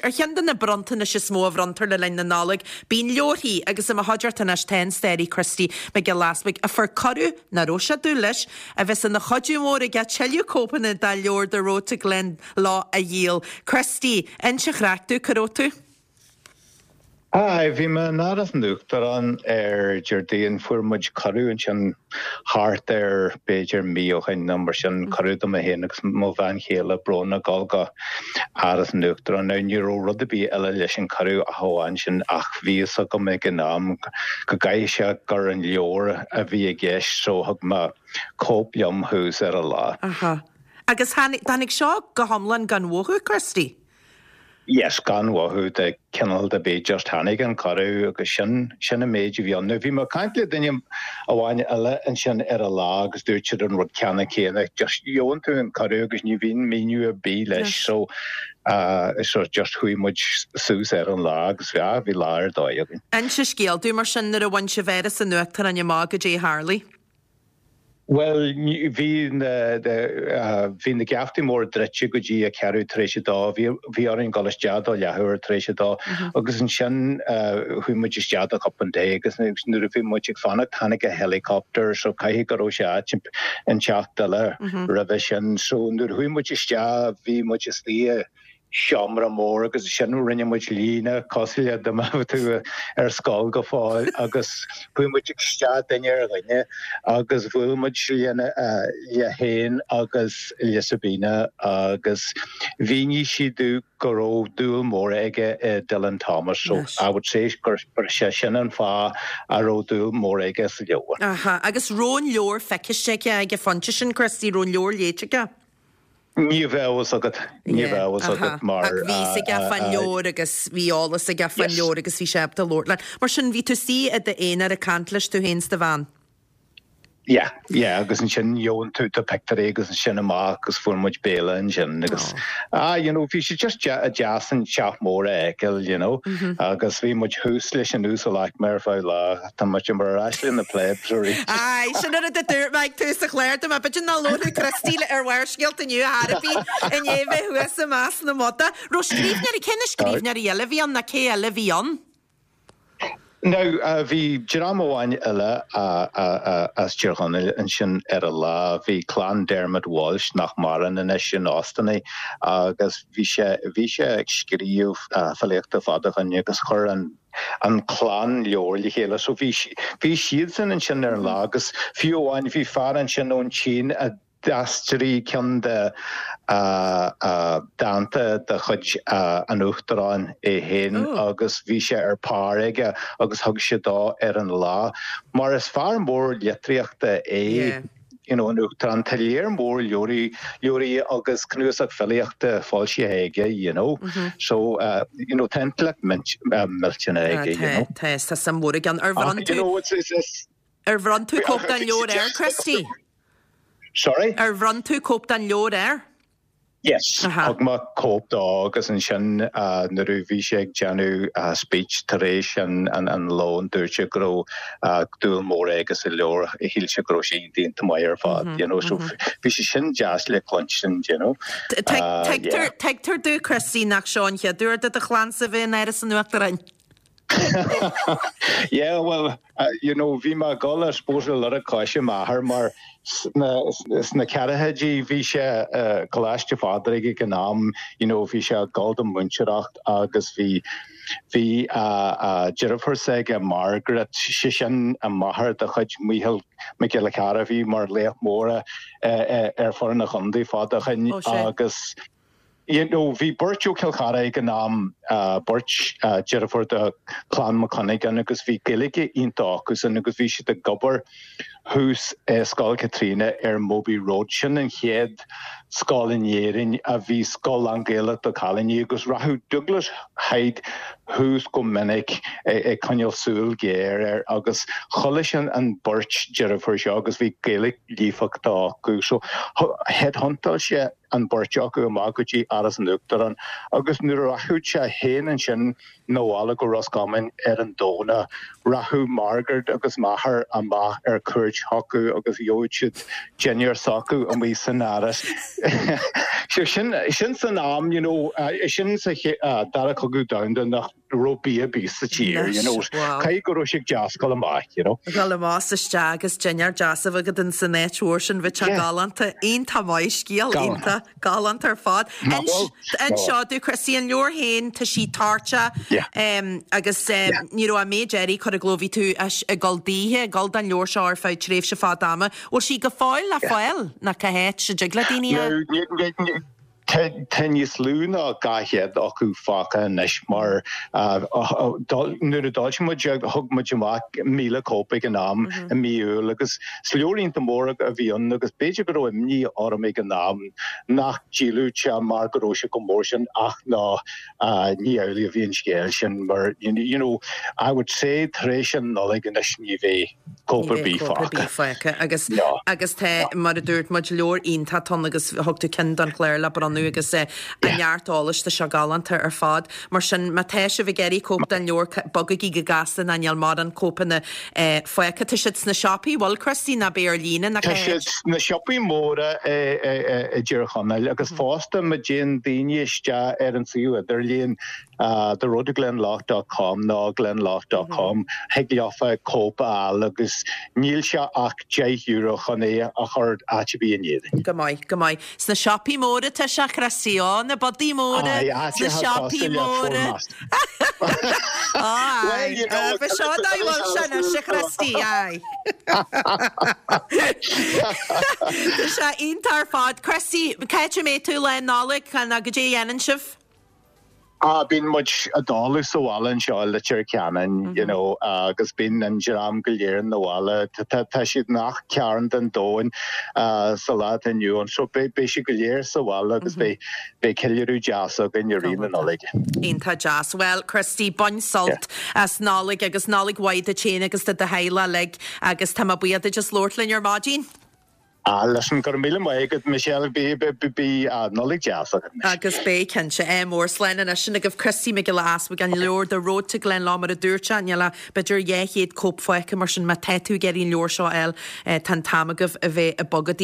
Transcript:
Ar cheann de na bronntanais is mó a bhronntar le linn na Nollag, bíonn leabharthaí, agus i mo chuideachta anois tá an staraí Christy Mac Giolla Easbuig, a fuair cuireadh, nach raibh sé ag dúil leis, a bheas ina chuidiú mór aige tuilleadh cóipeanna dá leabhar The Road to Glendalough a dhíol. Christy, inis an chraic domh, cá raibh tú? Aye, bhí mé in Áras an Uachtaráin ar Déardaoin, fuair muid cuireadh ansin thart ar b'fhéidir mí ó shin nó mar sin, cuireadh do mé féin agus mo bhean chéile Bróna dul go Áras an Uachtaráin. Now ní raibh rud ar bith eile leis an cuireadh ach amháin sin ach bhí fhios agam ag an am go gcaithfidh sé gur an leabhar a bhí i gceist so thug mé cóip liom thuas ar an lá. Aha. Agus tháinig seo go hiomlán gan mhothú, Christy? Yes, gan mhothú de chineál ar bith, just tháinig an cuireadh agus sin, sin an méid a bhí ann. Now bhí mé ag caint le duine amháin eile ansin ar an lá agus dúirt siad an rud ceanna céanna, just gheobhann tú an cuireadh agus ní bhíonn míniú ar bith leis so uh, so just chuaigh muid suas ar an lá agus bhí, bhí lá ar dóigh againn. Inis an scéal domh mar sin nuair a bhain sibh Áras an Uachtaráin amach goidé a tharlaigh. Bhuel, bhí na, bhí na geaftaí móra druidte go dtí a ceathrú tar éis a dó. Bhí, bhí orainn dul isteach do leathuair tar éis a dó agus ansin chuaigh muid isteach do chupán tae agus nuair a bhí muid ag fanacht tháinig a helicopter so caithfidh go raibh sé áit inteacht eile roimhe sin. So nuair a chuaigh muid isteach bhí muid istigh i seomra mór agus ansin rinne muid líne cosúil le dá mbeadh tú ar scoil go fóill agus chuaigh muid isteach duine ar dhuine agus bhuail muid lena le féin agus le Sabina agus mhínigh sí domh go raibh dúil mór aige i Dylan Thomas so I would say gur sé sin an fáth a raibh dúil mór aige sa leabhar. Aha, agus raibh an leabhar feicthe aige ag an phointe sin, Christy, raibh an leabhar léite aige? Ní bheadh a fhios agat, ní bheadh a fhios agat mar. Ach bhí fhios aige fán leabhar agus bhí eolas aige fán leabhar agus bhí sé ábalta labhairt leat. Mar sin, bhí tú istigh i d'aonar ag caint leis, tú féin is do bhean. Yeah, yeah, agus ansin gheobhann tú do pictiúirí agus ansin amach agus fuair muid béile ansin agus ah, you know, bhí sé just deas an teach mór a fheiceáil, you know, agus bhí muid thuas leis an uasalaicme ar feadh lá. Tá muid mar ar ais le na plebs arís. Aye, sin an rud a dúirt mé ag tús an chláir dom, b'fhéidir nach labharfadh Christy ar Bharrscéalta inniu ar chor ar bith i ndiaidh bheith thuas i measc na mbodach. Raibh scríbhneoirí, cé na scríbhneoirí eile a bhí ann nó cé eile a bhí ann? Now, bhí dream amháin eile as Tír Chonaill ansin ar an lá. Bhí clann Dermot Walsh, nach maireann anois, in Austin agus bhí sé, bhí sé ag scríobh filíochta fada ó shin agus chuir an, an clann leabhar le chéile. So bhí, bhí siadsan ansin ar an lá agus fiú amháin bhí fear ansin ón tSín a d'aistrigh ceann de dánta de chuid an Uachtaráin é féin agus bhí sé ar pár aige agus thug sé dó ar an lá. Mar is fear mór litríochta é. you know, an Uachtarán, tá léar mór leabhraí, leabhraí agus cnuasach filíochta foilsithe aige, you know. So, uh, you know, tá intleacht millteanach aige, you know. Tá, tá suim mhór aige ann. Ar bhronn tú, you know, it's, it's, it's, ar bhronn tú cóip den leabhar air, Christy? Sorry? Ar bhronn tú cóip den leabhar air? Yes, thug mé cóip dó agus ansin nuair a bhí sé ag déanamh speech tar éis an lóin dúirt sé go raibh dúil mór aige sa leabhar, shíl sé go raibh sé iontach maith ar fad, you know, so bhí sé sin deas le cluinstin, you know. Tuigtear domh, Christy, nach seo an chéad uair do do chlannsa bheith in Áras an Uachtaráin. Yeah, well, you know, bhí mé ag dul, I suppose, ar lorg coise m'athar mar sna ceathrachaidí bhí sé i gColáiste Phádraig ag an am, you know, bhí sé ag dul don mhúinteoireacht agus bhí bhí deirfiúr s'aige Margaret, sé sin an máthair de chuid Mícheál Mac Giolla Chearra a bhí mar laoch mór ar foireann an chontae fada ó shin agus You know, bhí beirt ó Chill Chartha ag an am, beirt deirfiúr de Chlann Mac Cuinneagáin agus bhí Gaeilge iontach acusan agus bhí siad ag obair thuas i Scoil Chaitríona ar Mobhi Road. Sin an chéad scoil in Éirinn a bhí scoil lán-Ghaelach do chailíní agus rachadh Douglas Hyde thuas go minic ag coinneáil súil ghéar air agus chuala sé an beirt deirfiúr seo agus bhí Gaeilge líofachta acu. So headhuntáil sé an bheirt acu amach go dtí Áras an Uachtaráin agus nuair a rachadh sé féin ansin 'na bhaile go Ros Comáin ar an Domhnach, rachadh Margaret agus m'athair amach ar cuairt. cuairt chucu agus gheobhadh siad dinnéar s'acu amuigh san áras. So sin, sin san am, you know, sin sa Dara Cogadh Domhanda nach raibh bia ar bith sa tír, you know. Caithfidh go raibh sé deas dul amach, you know. Dul amach is isteach agus dinnéar deas a bheith agat in san áit mhór sin, bheadh sé galánta. Iontach maith, scéal iontach. Galánta ar fad. Inis domh, Christy, an leabhar féin, tá sí toirteach agus ní raibh an méid earraí curtha i gcló, bhí tú ag dul daoithe, ag dul don leabhar seo ar feadh tréimhse fada ama. Bhfuil sí go fóill le fáil nó cá háit a dtig le daoine a. Tá níos lú ná 200 acu fágtha anois mar nuair a d'fhoilsigh muid thug muid amach 1,000 cóip ag an am i mí Iúil agus Is leabhar iontach mór a bhí ann agus b'fhéidir go raibh imní orm ag an am nach ndíolfadh sé mar go raibh sé chomh mór sin ach ná ní amhlaidh a bhí an scéal sin mar you know I would say tar éis an Nollaig anois ní bheidh cóip ar bith fágtha. fágtha agus agus tá mar a dúirt muid leabhar iontach ann agus thug tú ceann don chlár le bronnadh agus a neart eolais tá sé galánta ar fad. Mar sin má tá sibh ag iarraidh cóip den leabhar bogaigí go gasta ná níl mórán cóipeanna fágtha. Tá siad sna siopaí, bhfuil Christy, ná beidh ar líne ná Tá siad sna siopaí móra i dTír Chonaill agus fosta má dtéann daoine isteach ar an suíomh idirlíon theroadtoglenlough dot com nó glenlough dot com thig leofa cóip a fháil agus níl sé ach €10 chun é a chur áit ar bith in Éirinn. Go maith, go maith. Sna siopaí móra tá sé, Christy, ó, na bodaí móra, sna siopaí móra. Aye, ba seo dá bhfuil sé anois, a Christy, aye. Tá sé iontach ar fad. Christy, cá háit a mbeidh tú lá Nollag, nó goidé a dhéanann sibh? Ah, bíonn muid i dtólamh sa bhaile anseo i Leitir Ceanainn, you know, agus bíonn an dream go léir ina bhaile. Tá siad i ngach cearn den domhan sa lá atá inniu ann, so beidh siad go léir sa bhaile agus beidh beidh ceiliúradh deas againn i rith na Nollag. Iontach deas. Bhuel, Christy, bain sult as Nollaig agus Nollaig mhaith duit féin agus do do theaghlach uilig agus tá mé buíoch duit as labhairt linn ar maidin. Ah, listen, go raibh míle maith agat, Michelle, bí, bí, Nollaig deas agat anois. Agus beidh, cinnte. Ádh mór. Slán anois. Sin agaibh Christy Mac Giolla Easbuig, an leabhar The Road to Glenlough mar a dúirt sé, níl ach b'fhéidir 200 cóip fágtha mar sin má tá tú ag iarraidh an leabhar seo a fháil, tá an t-am agaibh a bheith ag bogadh.